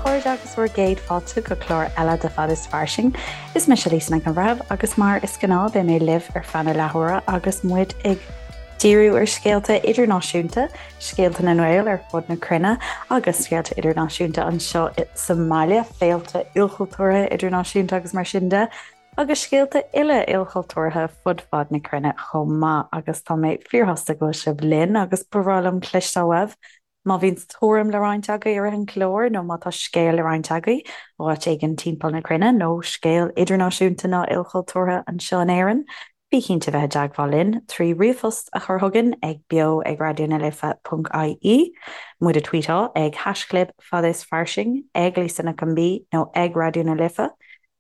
chairde agus bhur gcéad fáilte go clár eile de Fad is Fairsing. Is mise Lisa Nic an Bhreithimh agus mar is gnáth beidh mé libh ar feadh na leathuaire agus muid ag díriú ar scéalta idirnáisiúnta, scéalta na nGael ar fud na cruinne agus scéalta idirnáisiúnta anseo sa mbaile, féilte ilchultúrtha idirnáisiúnta agus mar sin de, agus scéalta uile ilchultúrtha fud fad na cruinne chomh maith. Agus tá mé fíorshásta go bhfuil sibh linn agus ba bhreá liom cloisteáil uaibh Má bhíonn tuairim le roinnt agaibh i rith an chláir nó má tá scéal le roinnt agaibh ó áit éigin timpeall na cruinne nó scéal idirnáisiúnta nó ilchultúrtha anseo in Éirinn, bí cinnte bheith i dteagmháil linn trí ríomhphost a chur chugainn ag beo ag raidió na life ponc ie, muid a tweetáil ag haischlib fad is fairsing, ag Lisa Nic an B nó ag Raidió na Life,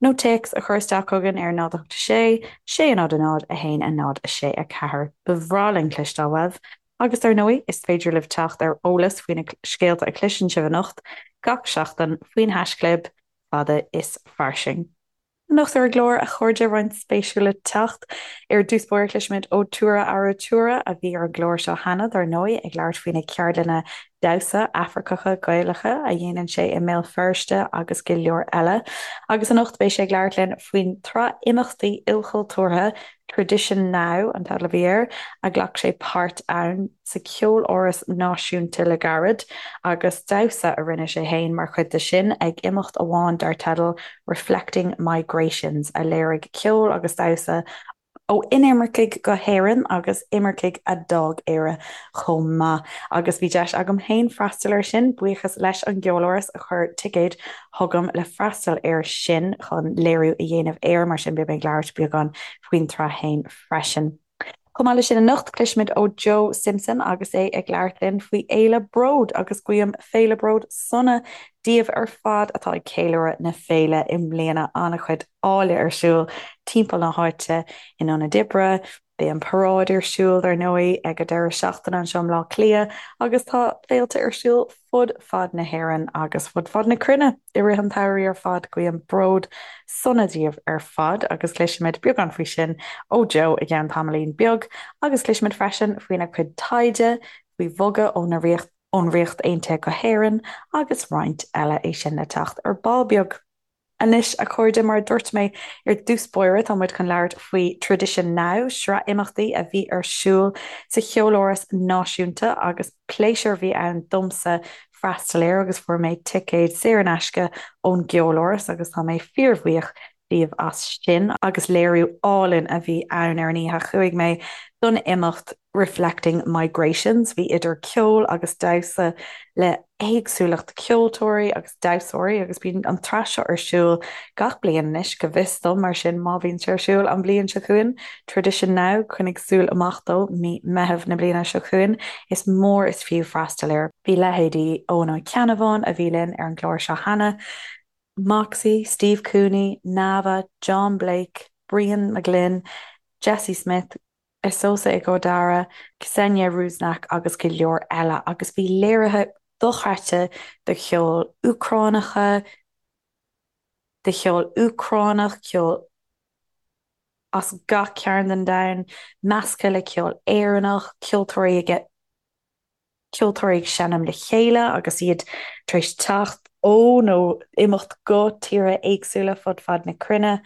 nó téacs a chur isteach chugainn ar 0 8 6 6 0 0 1 0 6 4. Ba bhreá linn cloisteáil uaibh Agus dar ndóigh, is féidir libh teacht ar eolas faoi na scéalta a chloiseann sibh anocht gach seachtain faoin haischlib fada is fairsing. Anocht ar an gclár, a chairde, roinnt spéisiúil le teacht. Ar dtús báire cloisfimid ó Tura Arutura, a bhí ar an gclár seo cheana, dar ndóigh, ag labhairt faoi na ceardlanna damhsa Afracacha Gaelacha a dhéanann sé i mBéal Feirste agus go leor eile. Agus anocht beidh sé ag labhairt linn faoin tsraith imeachtaí ilchultúrtha Tradition Now an teideal a bhí air, a ghlac sé páirt ann sa Cheoláras Náisiúnta le gairid, agus damhsa a rinne sé féin mar chuid de sin ag imeacht amháin dar teideal Reflecting Migrations, a léirigh ceol agus damhsa ó inimircigh go hÉirinn agus imircigh a d'fhág Éire chomh maith. Agus bhí deis agam féin freastal air sin, buíochas leis an gCeoláras a chuir ticéid chugam le freastal air sin chun léiriú a dhéanamh air, mar sin beidh mé ag labhairt beagán faoin tsraith féin freisin. Chomh maith leis sin anocht, cloisfimid ó Joe Simpson agus é ag labhairt linn faoi Fhéile Bród agus guím Féile Bród sona daoibh ar fad atá ag ceiliúradh na féile i mbliana. An-chuid áille ar siúl timpeall na háite in ionaid oibre, Beidh an paráid ar siúl, dar ndóigh, ag an deireadh seachtaine anseo i mBleá Cliath agus tá féilte ar siúl fud fad na hÉireann agus fud fad na cruinne i rith an tsamhraidh ar fad. Guím Bród sona daoibh ar fad agus cloisfimid beagán faoi sin ó Joe i gceann tamaillín beag agus cloisfimid freisin faoina chuid taighde faoi bhogadh ó na ón Ríocht Aontaithe go hÉirinn agus roinnt eile, é sin le teacht ar ball beag. Anois, a chairde, mar a dúirt mé ar dtús báire, tá muid chun labhairt faoi Tradition Now, sraith imeachtaí a bhí ar siúl sa Cheoláras Náisiúnta agus pléisiúr a bhí ann domsa freastal air agus fuair mé ticéad saor in aisce ón gCeoláras agus tá mé fíorbhuíoch díobh as sin agus léiriú álainn a bhí ann ar an oíche. Chuaigh mé don imeacht Reflecting Migrations. Bhí idir ceol agus damhsa le héagsúlacht ceoltóirí agus damhsóirí agus bíonn an tsraith seo ar siúl gach bliain anois, go bhfios dom, mar sin má bhíonn sé ar siúl an bhliain seo chugainn, Tradition Now, coinnigh súil amach dó, mí Meitheamh na bliana seo chugainn, is mór is fiú freastal air. Bhí leithéidí Eoin Ó Ceannabháin, a bhí linn ar an gclár seo cheana, Moxie, Steve Cooney, Nava, John Blake, Brian McGlynn, Jesse Smith, Esosa Ighodaro, Ksenia Rusnak agus go leor eile agus bhí léirithe dochreidte de cheol Úcránacha, de cheol Úcránach, ceol as gach cearn den domhan, measctha le ceol Éireannach, ceoltóirí ag ceoltóirí ag seinm le chéile agus iad tar éis teacht ó nó imeacht go tíortha éagsúla fud fad na cruinne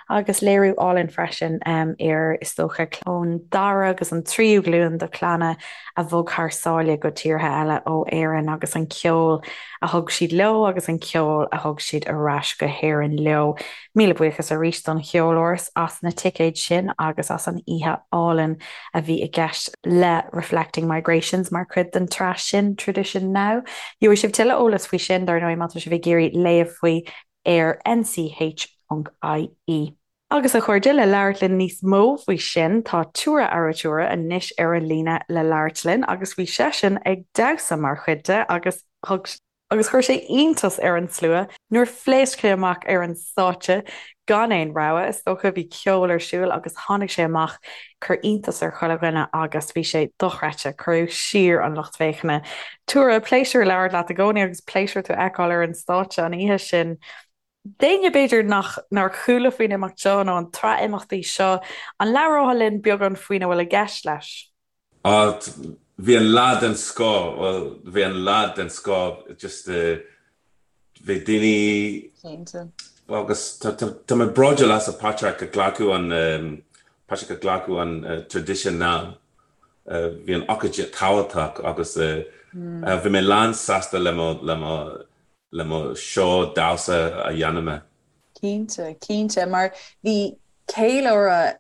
agus léiriú álainn freisin ar, is dócha, ón dara agus an tríú glúin de chlanna a bhog thar sáile go tíortha eile ó Éirinn agus an ceol a thug siad leo agus an ceol a thug siad ar ais go hÉirinn leo. Míle buíochas arís don Cheoláras as na ticéid sin agus as an oíche álainn a bhí i gceist le Reflecting Migrations mar chuid den tsraith sin Tradition Now. Gheobhaidh sibh tuilleadh eolas faoi sin, dar ndóigh, má tá sibh ag iarraidh léamh faoi ar nch.ie. Agus a chairde, le labhairt linn níos mó faoi sin, tá Tura Arutura anois ar an líne le labhairt linn agus bhí seisean ag damhsa mar chuid de agus thug Agus chuir sé iontas ar an slua nuair phléasc sé amach ar an stáitse gan aon rabhadh. Is dócha bhí ceol ar siúl agus tháinig sé amach, chuir iontas ar chuile dhuine agus bhí sé dochreidte. Cuireadh siar an lucht féachana. Tura, pléisiúr labhairt leat i gcónaí agus pléisiúr tú a fheiceáil ar an stáitse an oíche sin. D'éinne b'fhéidir nach nár chuala faoin imeacht seo nó an tsraith imeachtaí seo, an labhrófá linn beagán faoina bhfuil i gceist leis? Ah, bhí an lá den scoth, bhuel, bhí an lá den scoth, just eh. Bhí daoine. Cinnte. Agus tá mé bródúil as Patrick a glacadh an Patrick a glacadh an tradition now. Bhí an ócáid tábhachtach agus bhí mé lán sásta le mo le mo le mo seó damhsa a dhéanamh mé. Cinnte, cinnte, mar bhí ceiliúradh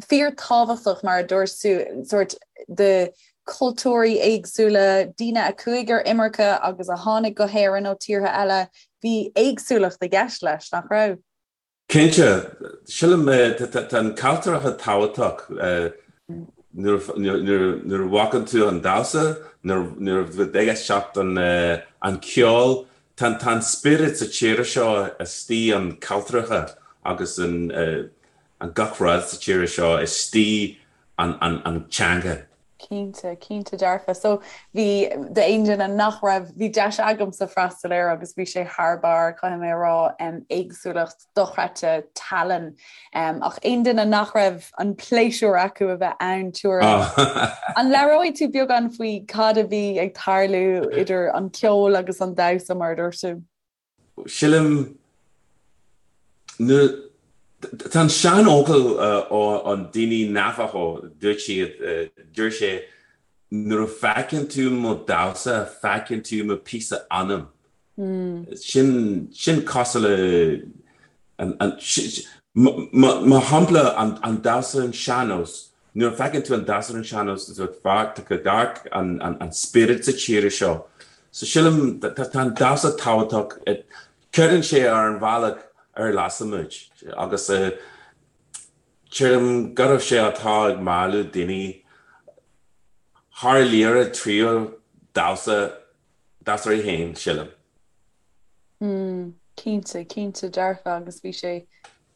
fíorthábhachtach, mar a dúirt tú, sórt de chultúirí éagsúla, daoine a chuaigh ar imirce agus a tháinig go hÉirinn ó tíortha eile, bhí éagsúlacht i gceist leis, nach raibh? Cinnte. Sílim, tá an cultúrtha tábhachtach nuair a bhfeiceann tú an damhsa, nuair a ag éisteacht an ceol, tá an spiorad sa tír seo istigh an cultúrtha agus an an gach rud sa tír seo istigh an an teanga. Cinnte, cinnte dearfa. So bhí, d'aon duine nach raibh, bhí deis agamsa freastal air agus bhí sé thar barr, caithfidh mé a rá, éagsúlacht dochreidte tallann. Ach aon duine nach raibh an pléisiúr acu a bheith ann, tabhair. An labhróidh tú beagán faoi cad a bhí ag tarlú idir an ceol agus an damhsa mar a dúirt tú? Sílim, nuair, tá an seanfhocal ó an daoine Navajo, dúirt siad, dúirt sé, nuair a feiceann tú mo damhsa, feiceann tú mo píosa anam. Sin, sin cosúil le, an, an, mar shampla, an damhsa an sean-nós, nuair a feiceann tú an damhsa an sean-nós, tá tú ag amharc an spiorad sa tír seo. So sílim, tá an damhsa tábhachtach, cuireann sé ar an bhealach ar lasamuid agus sílim go raibh sé atá ag mealladh daoine thar lear tríú damhsa, damhsóirí féin, sílim. Mm, cinnte, cinnte dearfa agus bhí sé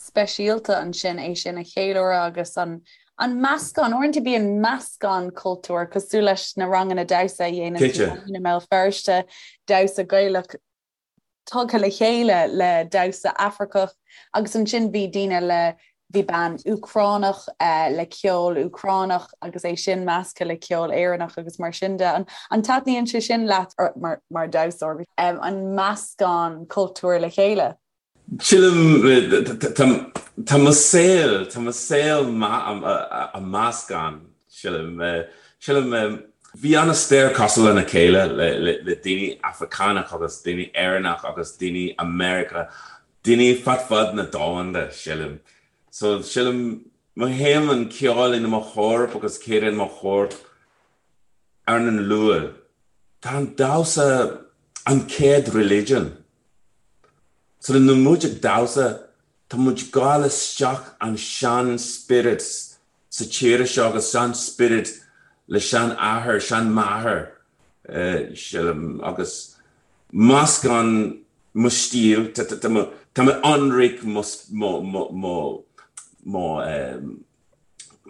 speisialta ansin é sin a cheiliúradh agus an an meascán, uaireanta bíonn meascán cultúr cosúil leis na ranganna damhsa a dhéanann tú i mBéal Feirste, damhsa Gaelach tugtha le chéile le damhsa Afracach agus ansin bhí daoine le bhí bean Úcránach le ceol Úcránach agus é sin measctha le ceol Éireannach agus mar sin de. An taitníonn sé sin leat mar mar damhsóir, an meascán cultúr le chéile? Sílim, tá mo saol, tá mo saol a meascán, sílim. Sílim, bhí an-stair cosúil lena chéile le daoine Afracánach agus daoine Éireannach agus daoine America, daoine fad fad na domhanda, sílim. So, sílim, mothaím an ceol in mo chorp agus céad in mo chorp ar an luath. Tá an damhsa an chéad religion. So nuair muid ag damhsa, tá muid ag gabháil isteach an sean spiorad sa tír seo agus sean spiorad le sean athair, sean máthair, sílim, agus meascán mo stíl, tá mé ionraic mo, mo, mo, mo,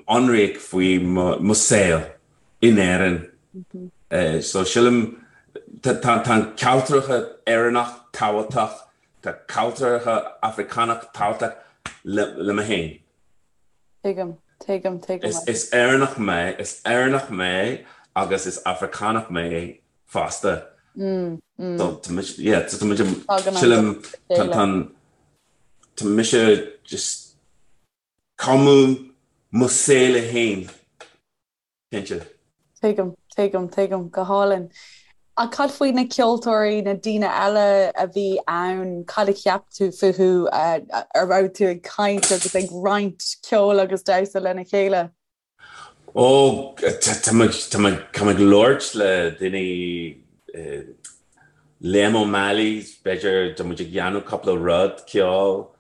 ionraic faoi mo saol in Éirinn. So sílim tá an cultúrtha Éireannach tábhachtach, tá cultúrtha Afracánach tábhachtach le mé féin. Tuigim, tuigim, tuigim. Is Éireannach mé, is Éireannach mé agus is Afracánach mé fosta. So tá mise, yeah, tá muid, sílim, tá mise just Cumadh mo saol féin, cinnte. Tuigim, tuigim, tuigim. Go hálainn. Ach cad faoi na ceoltóirí, na daoine eile a bhí ann, cad a cheap tú fúthu, a raibh tú ag caint agus ag roinnt ceoil agus damhsa lena chéile? Ó, tá mé ag labhairt le daoine, Liam O'Malley, b'fhéidir, tá muid ag dhéanamh cúpla rud ceoil,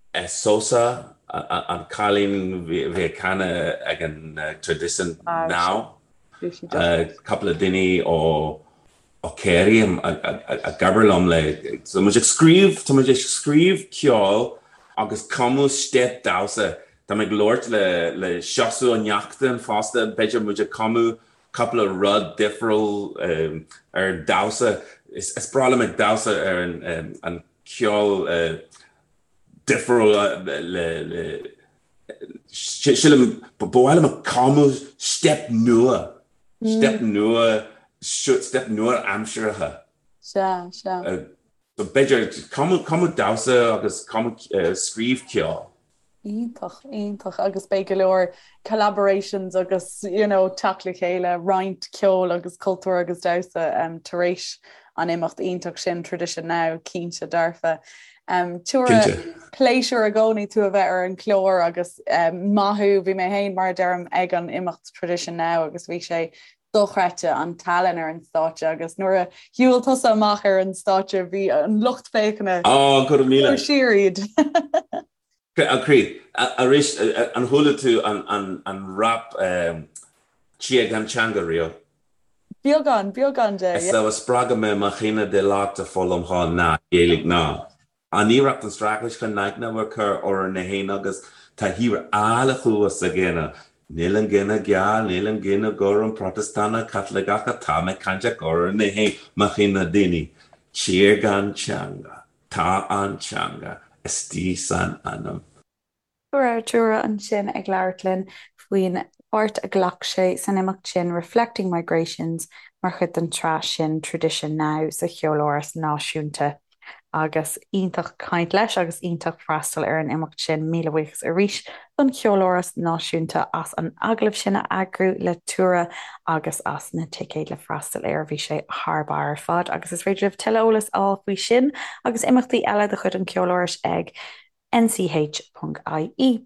Esosa, an cailín bhí ag canadh ag an Traidisiún Now, cúpla daoine ó ó Kerry ag obair liom le tá muid ag scríobh tá muid ag scríobh ceol agus cumadh steip damhsa tá mé ag labhairt le le Seosamh Ó Neachtain fosta b'fhéidir muid ag cumadh cúpla rud difriúil ar damhsa is is breá liom ag damhsa ar an an ceol difriúil le le sílim ba mhaith liom ag cumadh steip nua, steip nua, steip nua aimseartha. Sea, sea. So b'fhéidir cumadh damhsa agus cumadh scríobh ceol. Iontach, iontach agus beidh go leor collaborations agus you know teacht le chéile, roinnt ceoil agus cultúr agus damhsa um, tar éis an imeacht iontach sin Tradition Now, cinnte dearfa. Um, Tuara, pléisiúr i gcónaí tú a bheith ar an chlár agus um, maith thú, bhí mé féin mar a deirim ag an imeacht Tradition Now agus bhí sé dochreidte an tallann ar an stáitse agus nuair a shiúil tusa amach ar an stáitse bhí an lucht féachana Á, go raibh míle. Chuir siar iad. A chroí, arís, an chuala tú an rap Tír gan Teanga riamh? Beagán, beagán de, yeah. Is spreagadh mé mo chine de leat a foghlaim na Gaeilge ná. An iarracht an straitéis chun naicne a chur orainn na héin agus tá thír áille thuas againne. Níl an gcine geal, níl an gcine gorm, Protastúnach, Caitliceach, tá mé cainteach orainn na héin, mo chine daoine. Tír gan teanga, tá an teanga istigh san anam. Go raibh Tuara ansin ag labhairt linn faoin pháirt a ghlac sé san imeacht sin Reflecting Migrations mar chuid den tsraith sin Tradition Now sa Cheoláras Náisiúnta. Agus iontach caint leis agus iontach freastal ar an imeacht sin. Míle buíochas arís don Cheoláras Náisiúnta as an agallamh sin a eagrú le Tuara agus as na ticéid le freastal air. Bhí sé thar barr ar fad agus is féidir libh tuilleadh eolais a fháil faoi sin agus imeachtaí eile de chuid an Cheolárais ag nch.ie.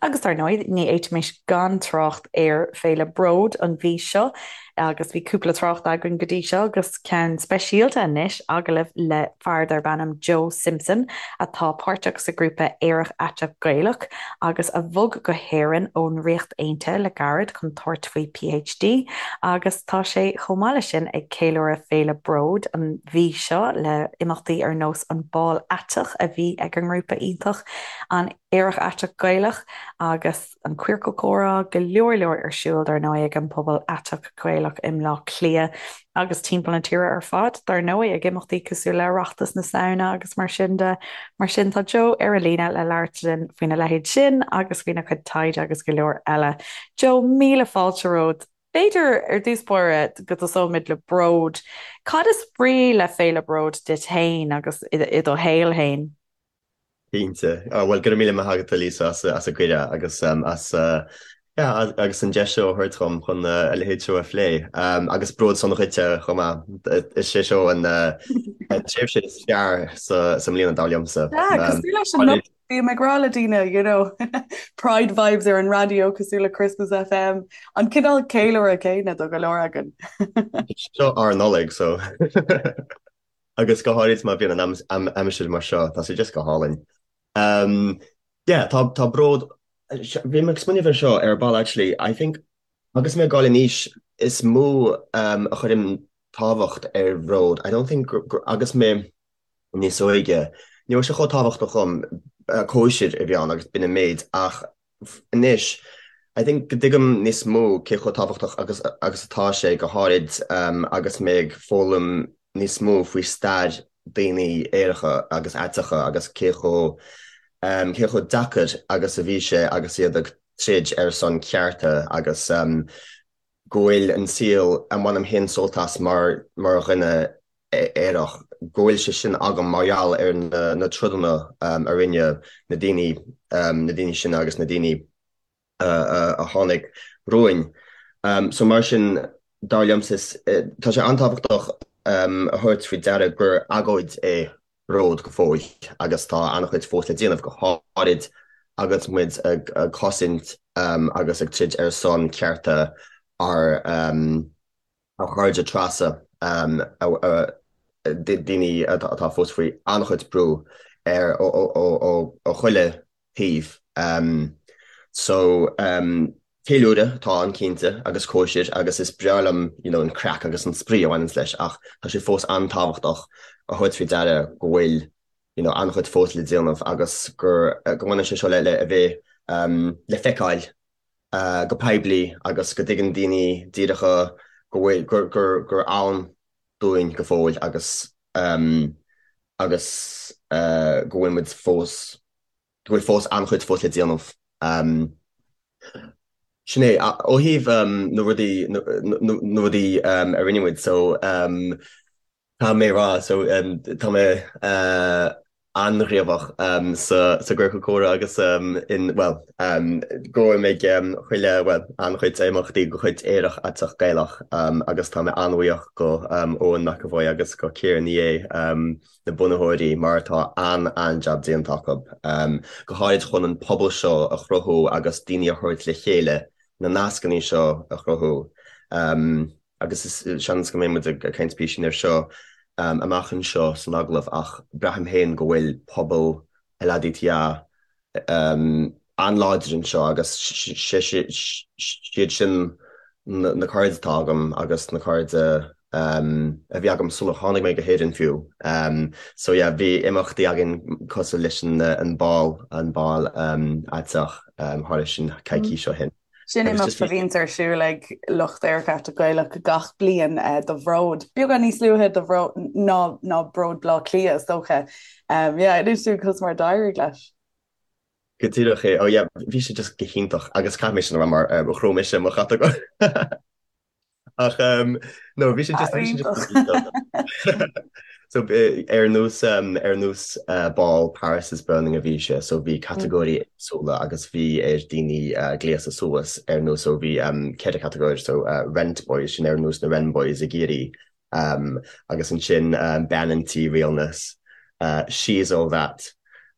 Agus dar ndóigh, ní fhéadfaimis gan trácht ar Féile Bród an mhí seo, agus bhí cúpla trácht againn go dtí seo, agus ceann speisialta anois, agallamh le fear darb ainm Joe Simpson, atá páirteach sa ghrúpa Aerach Aiteach Gaelach, agus a bhog go hÉirinn ón Ríocht Aontaithe le gairid chun tabhairt faoi PhD, agus tá sé chomh maith leis sin ag ceiliúradh Féile Bród an mhí seo le imeachtaí ar nós an Bál Aiteach a bhí ag an ngrúpa iontach, an Aerach Aiteach Gaelach agus an Queercal Comhrá, go leor leor ar siúl dar ndóigh ag an bpobal aiteach Gaelach i mBleá Cliath agus timpeall na tíre ar fad dar ndóigh ag imeachtaí cosúil le Oireachtas na Samhna agus mar sin de. Mar sin tá Joe ar an líne le labhairt linn faoina leithéid sin agus faoina chuid taighde agus go leor eile. Joe, míle fáilte romhat. B'fhéidir, ar dtús báire, go dtosóimid le bród. Cad is brí le Féile Bród duit féin agus i do shaol féin? Cinnte. Bhuel, go raibh míle maith agat, a Lisa, as an gcuireadh agus as yeah, agus an deis seo a thabhairt dhom chun a leithéid seo a phlé. Agus bród sona dhuitse chomh maith. Is é seo an tréimhse is fearr sa mbliana, dar liomsa. Yeah, cosúil leis an Bím ag rá le daoine, you know, Pride vibes ar an raidió cosúil le Christmas FM, an cineál ceiliúradh céanna do go leor againn. Seo ár Nollaig, so. Agus go háirid má bhíonn an aimsir mar seo, tá sé just go hálainn. Um, yeah, tá, tá bród, bhí mé ag smaoineamh ar seo ar ball actually, I think agus mé ag dul in aois is mó um, a chuirim tábhacht ar bhród. I don't think agus mé níos óige. Ní raibh sé chomh tábhachtach dhom, cóisir a bhí ann agus b'in an méid ach anois I think go dtuigim níos mó cé chomh tábhachtach agus agus atá sé, go háirid agus mé ag foghlaim níos mó faoi stair daoine aeracha agus aiteacha agus cé chomh cé chomh deacair agus a bhí sé agus iad ag troid ar son cearta agus go bhfuil an saol a mbainim féin sult as mar mar dhuine aerach, go bhfuil sé sin agam mar gheall ar na troideanna a rinne na daoine, na daoine sin agus na daoine a tháinig romhainn. So mar sin, dar liomsa, tá sé an-tábhachtach a thabhairt faoi deara gur agóid é bród go fóill agus tá an-chuid fós le déanamh, go háirid agus muid ag cosaint agus ag troid ar son cearta ár ár gcairde trasa, daoine atá fós faoi an-chuid brú ar ó chuile thaobh. So, ceiliúradh atá ann cinnte agus cóisir agus is breá liom you know an craic agus an spraoi a bhaineanns leis ach tá sé fós an-tábhachtach a thabhairt faoi deara go bhfuil you know an-chuid fós le déanamh agus gur go mbaineann sé seo le le a bheith le feiceáil go poiblí agus go dtuigeann daoine díreacha go bhfuil, gur, gur, gur ann dúinn go fóill agus agus go bhfuil muid fós, go bhfuil fós an-chuid fós le déanamh. Sin é. Ó thaobh na rudaí, na rudaí a rinne muid, so. Tá mé ag rá, so tá mé an-ghníomhach sa gciorcal comhrá agus in, bhuel, gabhaim ag chuile, bhuel, an-chuid imeachtaí de chuid Aerach Aiteach Gaelach agus tá mé an-bhuíoch go Eoin McEvoy agus go Ciara Ní É, na bunaitheoirí, mar tá an-an-jab déanta acu, go háirid chun an pobal seo a chruthú agus daoine a thabhairt le chéile, na nascanna seo a chruthú. Agus is seans go mbeidh muid ag caint píosín air seo amach anseo san agallamh ach braithim féin go bhfuil pobal LADTA an-láidir anseo agus siad sin na cairde atá agam agus na cairde a bhí agam sular tháinig mé go hÉirinn fiú. So yeah, bhí imeachtaí againn cosúil leis an bál, an bál aiteach, tharla sin coicís ó shin. Sin imeacht a bhíonns ar siúl ag lucht Aerach Aiteach Gaelach gach bliain do Bhród. Beagán níos luaithe do Bhród ná ná Bród Bhleá Cliath is dócha. Yeah, inis dúinn conas mar a d'éirigh leis. Go díreach é. Oh yeah, bhí sé just go hiontach agus caithfidh mé sin a rá mar chrom mise mo chatagóir. Ach no bhí sé just bhí sé just So ar nós ar nós bál Paris is Burning a bhí sé, so bhí catagóirí éagsúla agus bhí ar daoine gléasadh suas ar nós so bhí ceithre catagóir so Rent Boys sin ar nós na Wren Boys i gCiarraí agus ansin Bean an Tí Realness, She's All That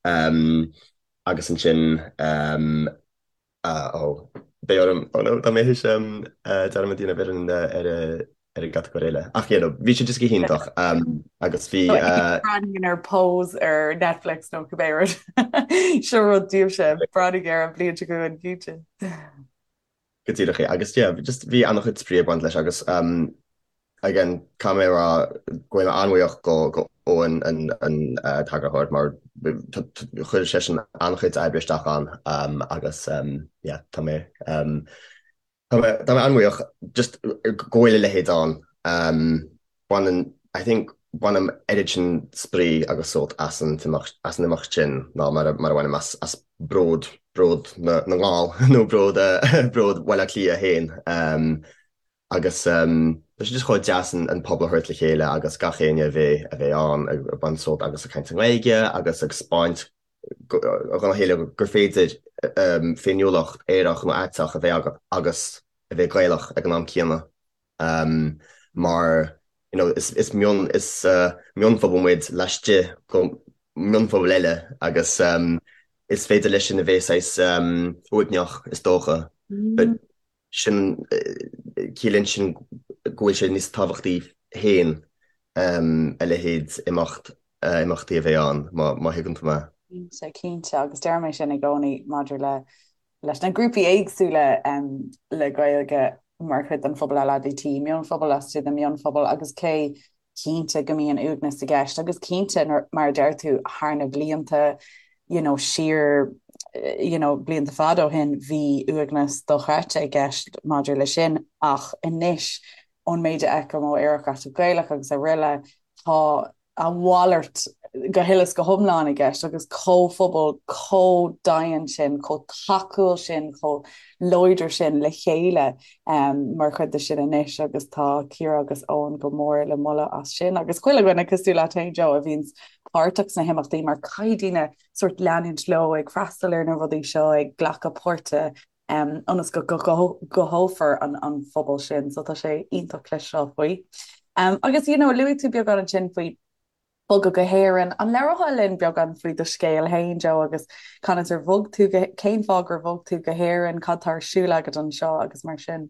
agus ansin Ó, beidh orm, oh no, tá mé théis dearmad a dhéanamh ar an ar ar an gcatagóir eile. Ach you know, bhí sé just go hiontach agus bhí. Breathnaigh ar Pose ar Netflix nó cibé rud. Seo rud daoibhse, breathnaigh air an bhliain seo chugainn cinnte. Go díreach é. Agus yeah, just bhí an-chuid spraoi ag baint leis agus again, caithfidh mé a rá go bhfuil mé an-bhuíoch go go Eoin an an t-eagarthóir mar chuir seisean an-chuid oibre isteach ann agus yeah, tá mé tá mé tá mé an-bhuíoch just go bhfuil a leithéid ann. Baineann I think bainim oiread sin spraoi agus sult as an t-imeacht as an imeacht sin ná mar a mar a bhainim as as Bród Bród na na nGall nó Bród Bród Bhaile Átha Cliath féin. Agus tá sé just chomh deas an pobal a thabhairt le chéile agus gach éinne a bheith a bheith ann ag baint sult agus ag caint i nGaeilge agus ag 'spáint dhona chéile gur féidir féiniúlacht aerach nó aiteach a bheith agat agus a bheith Gaelach ag an am céanna mar you know is is mion is mionphobal muid laistigh de mhionphobal eile agus is féidir leis sin a bheith saghas uaigneach is dócha but sin, ciallaíonn sin go bhfuil sé níos tábhachtaí féin a leithéid imeacht, imeachtaí a bheith ann, má thuigeann tú mé. Cinnte, cinnte, agus deirim é sin i gcónaí maidir le leis na grúpaí éagsúla le Gaeilge mar chuid den phobal LADT, mionphobal laistigh de mhionphobal agus cé cinnte go mbíonn uaigneas i gceist agus cinnte mar a deir tú thar na blianta you know siar you know blianta fada ó shin bhí uaigneas dochreidte i gceist maidir le sin ach anois ón méid a fheicim ó Aerach Aiteach Gaelach agus araile tá a mhalairt go huile is go hiomlán i gceist agus comhphobal chomh daingean sin, chomh tacúil sin, chomh láidir sin le chéile mar chuid de sin anois agus tá Ciara agus Eoin go mór le moladh as sin agus chuile dhuine cosúil leat féin Joe a bhíonns páirteach sna himeachtaí mar caithfidh daoine sórt leanúint leo ag freastal ar na rudaí seo ag glacadh páirte ionas go gcothófar an phobal sin so tá sé iontach cloisteáil faoi. Agus you know luaigh tú beagán ansin faoi bogadh go hÉirinn. An labhrófá linn beagán faoi do scéal féin, Joe, agus conas ar bhog tú go, cén fáth gur bhog tú go hÉirinn, cad tá ar siúl agat anseo agus mar sin?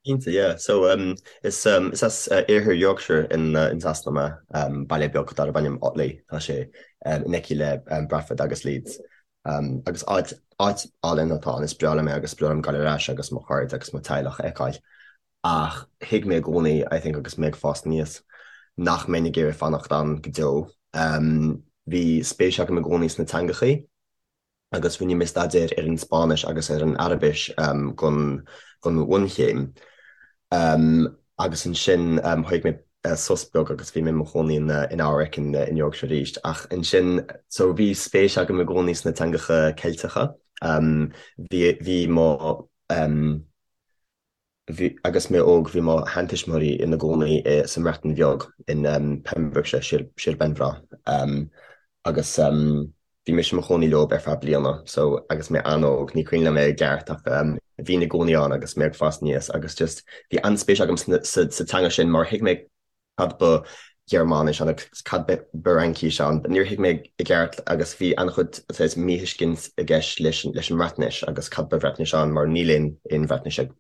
Cinnte, yeah. So, um, is, um, is as uh, iarthar Yorkshire in, uh, in Sasana mé, um, baile beag darb ainm Otley, tá sé um, in aice le um, Bradford agus Leeds. Um, agus áit, áit álainn atá ann, is breá liom é agus is breá liom gabháil ar ais agus mo chairde agus mo teaghlach a fheiceáil. Ach thuig mé i gcónaí, I think, agus mé ag fás aníos, nach mbeinn ag iarraidh fanacht ann go deo. Bhí spéis agam i gcónaí sna teangachaí agus rinne mé staidéar ar an Spáinnis agus ar an Araibis don don bhunchéim. Agus ansin thóg mé sos beag agus bhí mé i mo chónaí in in Eabhrac in in Yorkshire arís. Ach ansin, so bhí spéis agam i gcónaí sna teangacha Ceilteacha. Bhí bhí mo. Bhí, agus mé óg, bhí mo sheantuismitheoirí ina gcónaí sa mBreatain Bheag, in Pembrokeshire, Sir, Sir Benfro, agus bhí mise i mo chónaí leo ar feadh bliana, so agus mé an-óg, ní cuimhin liom é i gceart ach bhínn i gcónaí ann agus mé ag fás aníos agus just bhí an-spéis agam sa teanga sin mar thuig mé cad ba Ghearmáinis ann agus cad ba Fhraincis ann. Níor thuig mé i gceart agus bhí an-chuid saghas míthuiscint i gceist leis an mBreatnais agus cad ba Bhreatnais ann mar níl aon aon Bhreatnais ag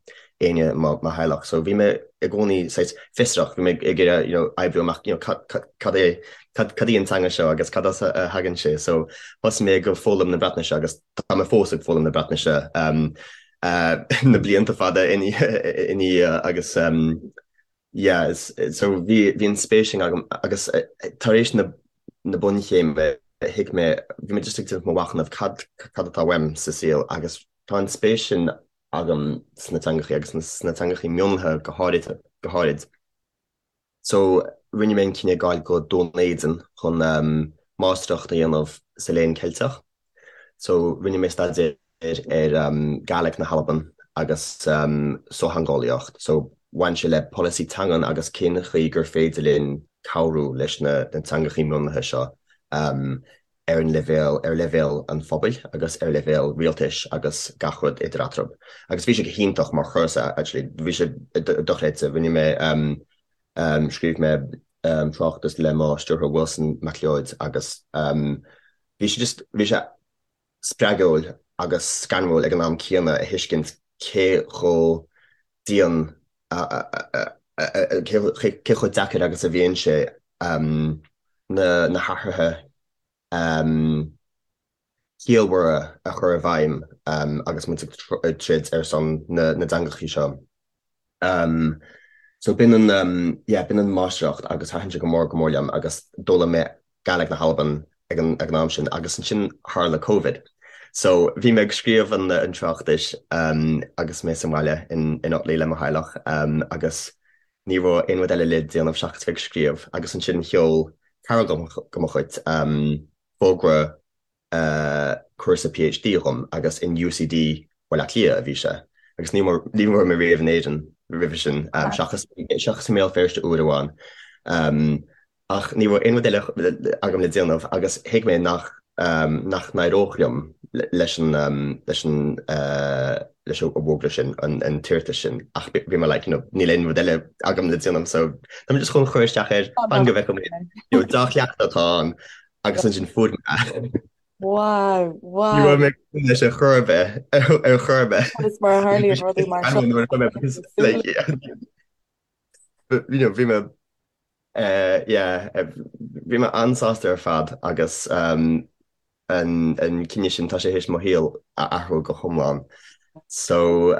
éinne i mo theaghlach. So bhí mé i gcónaí saghas fiosrach, bhí mé ag iarraidh you know oibriú amach you know cad cad é cad cad í an teanga seo agus cad as a thagann sé. So thosaigh mé ag foghlaim na Breatnaise agus tá mé fós ag foghlaim na Breatnaise um, uh, na blianta fada ina dhiaidh agus um, Yeah, is, so bhí, bhí an spéis sin agam agus tar éis na, na bunchéime thuig mé, bhí mé just ag déanamh mo mhachnamh cad, cad atá uaim sa saol agus tá an spéis sin agam sna teangachaí agus sna teangachaí mionlaithe go háirid, go háirid. So rinne mé an cinneadh gabháil go Dún Éideann chun máistreacht a dhéanamh sa Léann Ceilteach. So rinne mé staidéar ar Gàidhlig na hAlban agus sochtheangeolaíocht. So bhain sé le polasaí teangan agus cén chaoi gur féidir linn cabhrú leis na teangachaí mionlaithe seo ar an leibhéal, ar leibhéal an phobail agus ar leibhéal rialtais agus gach rud idir eatarthu. Agus bhí sé go hiontach mar chúrsa actually, bhí sé dochreidte. Rinne mé, scríobh mé tráchtas le mo stiúrthóir Wilson MacLeòid agus bhí sé just, bhí sé spreagúil agus scanrúil ag an am céanna a thuiscint cé chomh dian, cé chomh deacair agus a bhíonn sé na hathruithe ciallmhara a chur i bhfeidhm agus muid ag troid ar son na dteangachaí seo. So b'in an, yeah, b'in an máistreacht agus thaitin sé go mór go mór liom agus d'fhoghlaim mé Gàidhlig na hAlban ag an ag an am sin agus ansin tharla Covid. So bhí mé ag scríobh an an tráchtais agus mé sa mbaile in in Otley le mo theaghlach agus ní raibh aon rud eile le déanamh seachas bheith ag scríobh agus ansin sheol cara de mo chuid fógra cúrsa PhD dhom agus in UCD Bhaile Átha Cliath a bhí sé agus ní ní raibh mé riamh in Éirinn roimhe sin seachas seachas i mBéal Feirste uair amháin. Ach ní raibh aon rud eile agam le déanamh agus thuig mé nach nach n-éireodh liom leis an leis an leis an bhfógra sin, an t-iarratas sin ach bhí mé like you know níl aon rud eile agam le déanamh so tá mé just chun cur isteach air fan go bhfeicfidh mé you know dea-chleachtadh atá ann agus ansin fuair mé é. Wow, wow. Ní raibh mé ag súil leis ar chor ar bith, ar chor ar bith. Is mar a tharlaíonn rudaí mar seo. Like, you know, bhí mé Yeah, bhí mé an-sásta ar fad agus an cinneadh sin, tá sé théis mo shaol a athrú go hiomlán. So,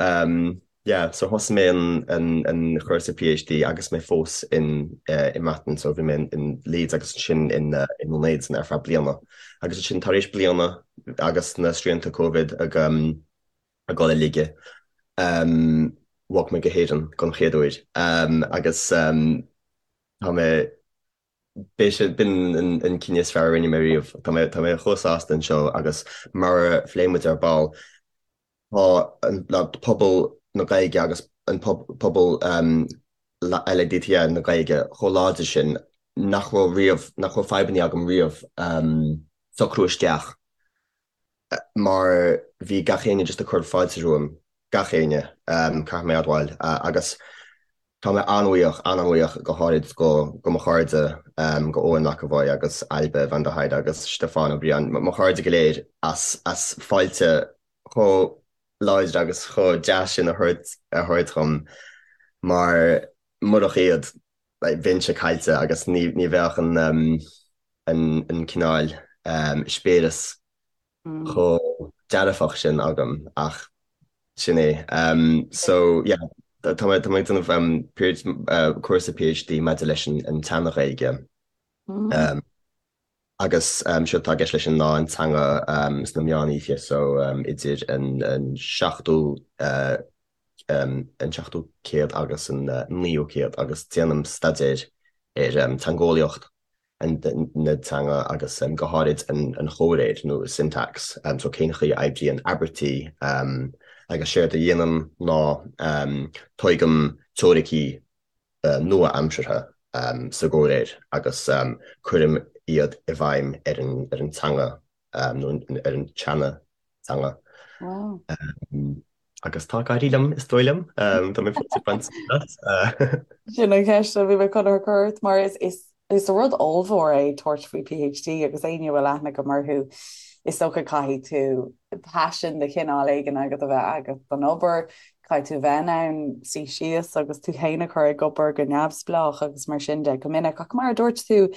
yeah, so thosaigh mé an cúrsa PhD agus mé fós in i mBreatain, so bhí mé in Leeds agus ansin in Dún Éideann ar feadh bliana. Agus ansin tar éis bliana agus na srianta Covid ag ag dul i laige, bhog mé go hÉirinn don chéad uair agus tá mé, b'é sin, b'in an cinneadh is fearr a rinne mé riamh. Tá mé, tá mé chomh sásta anseo agus mar a phléigh muid ar ball, tá an pobal na Gaeilge agus an pobal LADT na Gaeilge chomh láidir sin nach raibh riamh, nach raibh fadhbanna agam riamh socrú isteach mar bhí gach éinne just ag cur fáilte romham, gach éinne, caithfidh mé admháil, agus tá mé an-bhuíoch, an-an-bhuíoch go háirid go, go mo chairde, go Eoin McEvoy agus Ailbhe van der Heide agus Stiofán Ó Briain, mo chairde go léir as, as fáilte chomh láidir agus chomh deas sin a thabhairt, a thabhairt dhom mar murach iad, bheinnse caillte agus ní, ní bheadh an, an cineál eispéireas chomh dearfach sin agam ach sin é. So yeah, tá mé ag déanamh cúrsa PhD maidir leis an tSean-Ghaeilge agus séard atá i gceist leis sin ná an teanga sna meánoíche so idir an seachtú an seachtú céad agus an naoú céad agus déanaim staidéar ar teangeolaíocht na teanga agus go háirid an chomhréir nó syntax, so cén chaoi a oibríonn abairtí. Agus séard a dhéanaim ná tógaim teoiricí nua-aimseartha sa gcomhréir agus cuirim iad i bhfeidhm ar an teanga nó ar an tseana-teanga. Agus tá ag éirí liom, is dóigh liom. Tá mé fós ag baint sult as. Sin an cheist a bhí mé chun a chur ort mar is rud ollmhór é tabhairt faoi PhD agus éinne a bhfuil aithne agam orthu, is dócha caithfidh tú paisean de chineál éigin agat a bheith agat don obair, caithfidh tú bheith in ann suí síos agus tú féin a chur ag obair go neamhspleách agus mar sin de go minic. Ach mar a dúirt tú,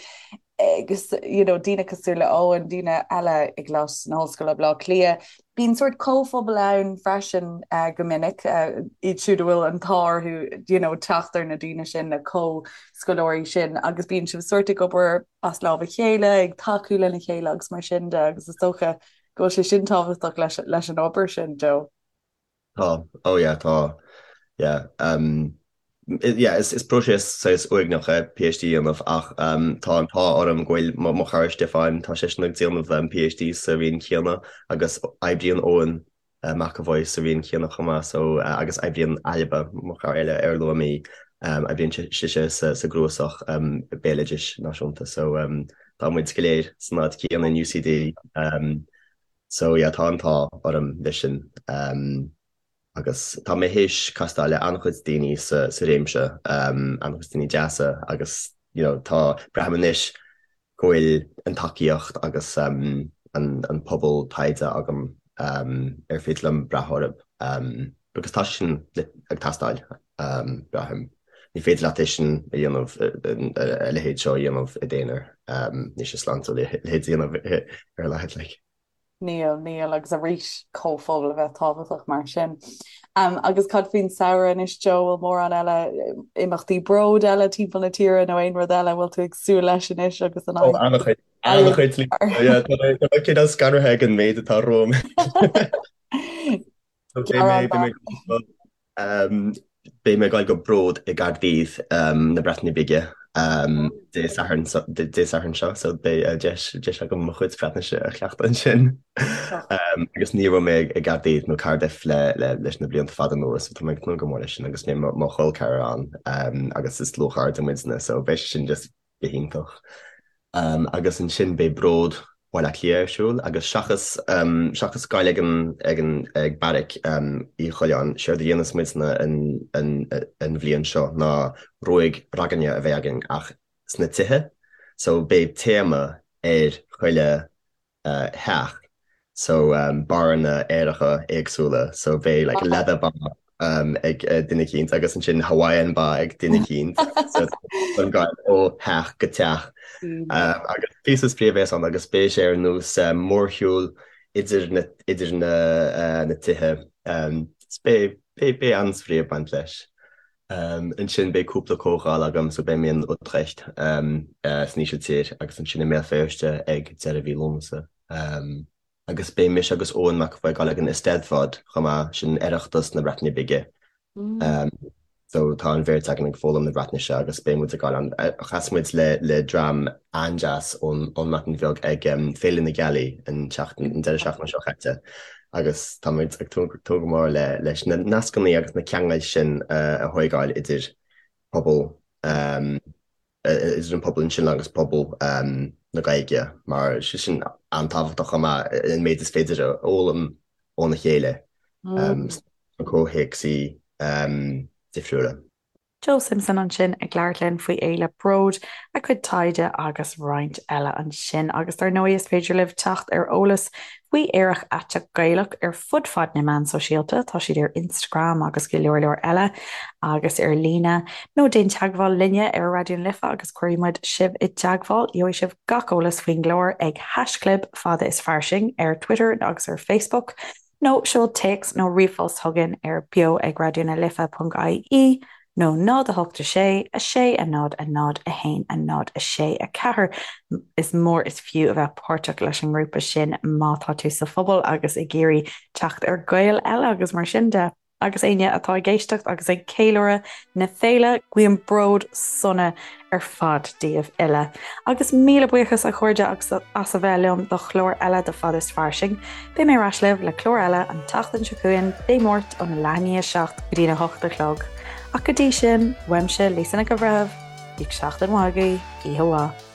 agus you know daoine cosúil le Eoin, daoine eile i gColáiste na hOllscoile Baile Átha Cliath. Bíonn sórt comhphobal ann freisin go minic, iad siúd a bhfuil an t-ádh orthu you know teacht ar na daoine sin, na comhscoláirí sin agus bíonn sibh sórt ag obair as lámh a chéile, ag tacú lena chéile agus mar sin de agus is dócha go bhfuil sé sin tábhachtach leis leis an obair sin, Joe. Tá, oh yeah, tá, yeah. Um, yeah, is, is próiseas saghas uaigneach é PhD a dhéanamh ach um, tá an t-ádh orm go bhfuil mo, mo chara Stiofán, tá seisean ag déanamh um, PhD sa roinn chéanna agus oibríonn Eoin uh, McEvoy sa roinn chéanna chomh maith so, uh, agus oibríonn Ailbhe, mo chara eile ar luaigh mé, um, oibríonn sise sa, sa gcnuasach um, béaloidis náisiúnta so um, tá muid go léir san áit chéanna in UCD um, So yeah, tá an t-ádh orm leis sin. Agus tá mé théis castáil le an-chuid daoine sa sa réimse, an-chuid daoine deasa agus you know tá, braithim anois go bhfuil an tacaíocht agus an an pobal taighde agam ar féidir liom brath orthu because tá sé sin ag teastáil, braithim. Ní féidir leat é sin a dhéanamh, a leithéid seo a dhéanamh i d'aonar. Níl sé sláintiúil a leithéid a dhéanamh ar a laghad, like. Níl, níl, agus arís comhphobal a bheith tábhachtach mar sin. Agus cad faoin samhradh anois, Joe, bhfuil mórán eile, imeachtaí bród eile timpeall na tíre nó aon rud eile a bhfuil tú ag súil leis anois agus an Ó, an-chuid, an-chuid, yeah, tá mé, tá mé cineál scanraithe ag an méid atá romham. So beidh mé, beidh mé, Beidh mé ag dul go Bród i gCaerdydd na Breataine Bige Dé Sathairn Dé Sathairn seo, so beidh deis deis agam mo chuid Breatnaise a chleachtadh ansin. Agus ní raibh mé i gCaerdydd nó Cardiff le le leis na blianta fada anuas, so tá mé ag tnúth go mór leis sin agus beidh mo chol ceathrar ann agus is dlúthchairde muidne, so beidh sé sin just go hiontach. Agus ansin beidh Bród Bhaile Átha Cliath ar siúl agus seachas seachas gabháil ag an ag an ag Beairic Uí Choileáin, séard a dhéanfas muidne an an an bhliain seo ná ruaig ragairne a bheidh againn ach sna tithe. So beidh téama ar chuile theach so barranna aeracha éagsúla so beidh like leather bar ag duine eicínt agus ansin Hawaiian bar ag duine eicínt so an gabháil ó theach go teach agus píosa spraoi a bheas ann agus beidh sé ar nós mórshiúl idir na idir na na tithe beidh beidh beidh an-spraoi ag baint leis. Ansin beidh cúpla comhdháil agam so beidh mé in Utrecht san Ísiltír agus ansin i mBéal Feirste ag deireadh mhí Lúnasa. Agus beidh mise agus Eoin McEvoy ag dul ag an Eisteddfod chomh maith, sin Oireachtas na Breataine Bige. So tá an bheirt againn ag foghlaim na Breatnaise agus beidh muid ag dul ann. Chas muid le le dream an-deas ón ón mBreatain Bheag ag Féile na Gealaí an tseachtain an deireadh seachtaine seo caite. agus tá muid ag tnúth go mór le leis na nascanna agus na ceangail sin a thóigeáil idir pobal idir an pobal ansin agus pobal na Gaeilge mar sé sin an-tábhachtach chomh maith an méid is féidir a fhoghlaim óna chéile sna comhthéacsaí difriúla. Joe Simpson ansin ag labhairt linn faoi Fhéile Bród, a cuid taighde agus roinnt eile ansin. Agus dar ndóigh is féidir libh teacht ar eolas faoi Aerach Aiteach Gaelach ar fud fad na meán sóisialta, tá siad ar Instagram agus go leor leor eile, agus ar líne, nó déan teagmháil linne ar Raidió na Life agus cuirfidh muid sibh i dteagmháil. Gheobhaidh sibh gach eolas faoin gclár ag haischlib fada is fairsing ar Twitter agus ar Facebook. Nó seol téacs nó ríomhphost chugainn ar beo ag raidió na life ponc ie nó 0 8 6 6 0 0 1 0 6 4. Is mór is fiú a bheith páirteach leis an ngrúpa sin má tá tú sa phobal agus ag iarraidh teacht ar Ghaeil eile agus mar sin de. Agus éinne atá ag éisteacht agus ag ceiliúradh na féile, guím bród sona ar fad daoibh uile. Agus míle buíochas a chairde as a bheith liom do chlár eile de Fad is Fairsing. Beidh mé ar ais libh le clár eile an tseachtain seo chugainn, Dé Máirt óna leath i ndiaidh a 7 go dtína 8 a chlog. Ach go dtí sin, uaimse Lisa Nic an Bhreithimh, bíodh seachtain mhaith agaibh, oíche mhaith.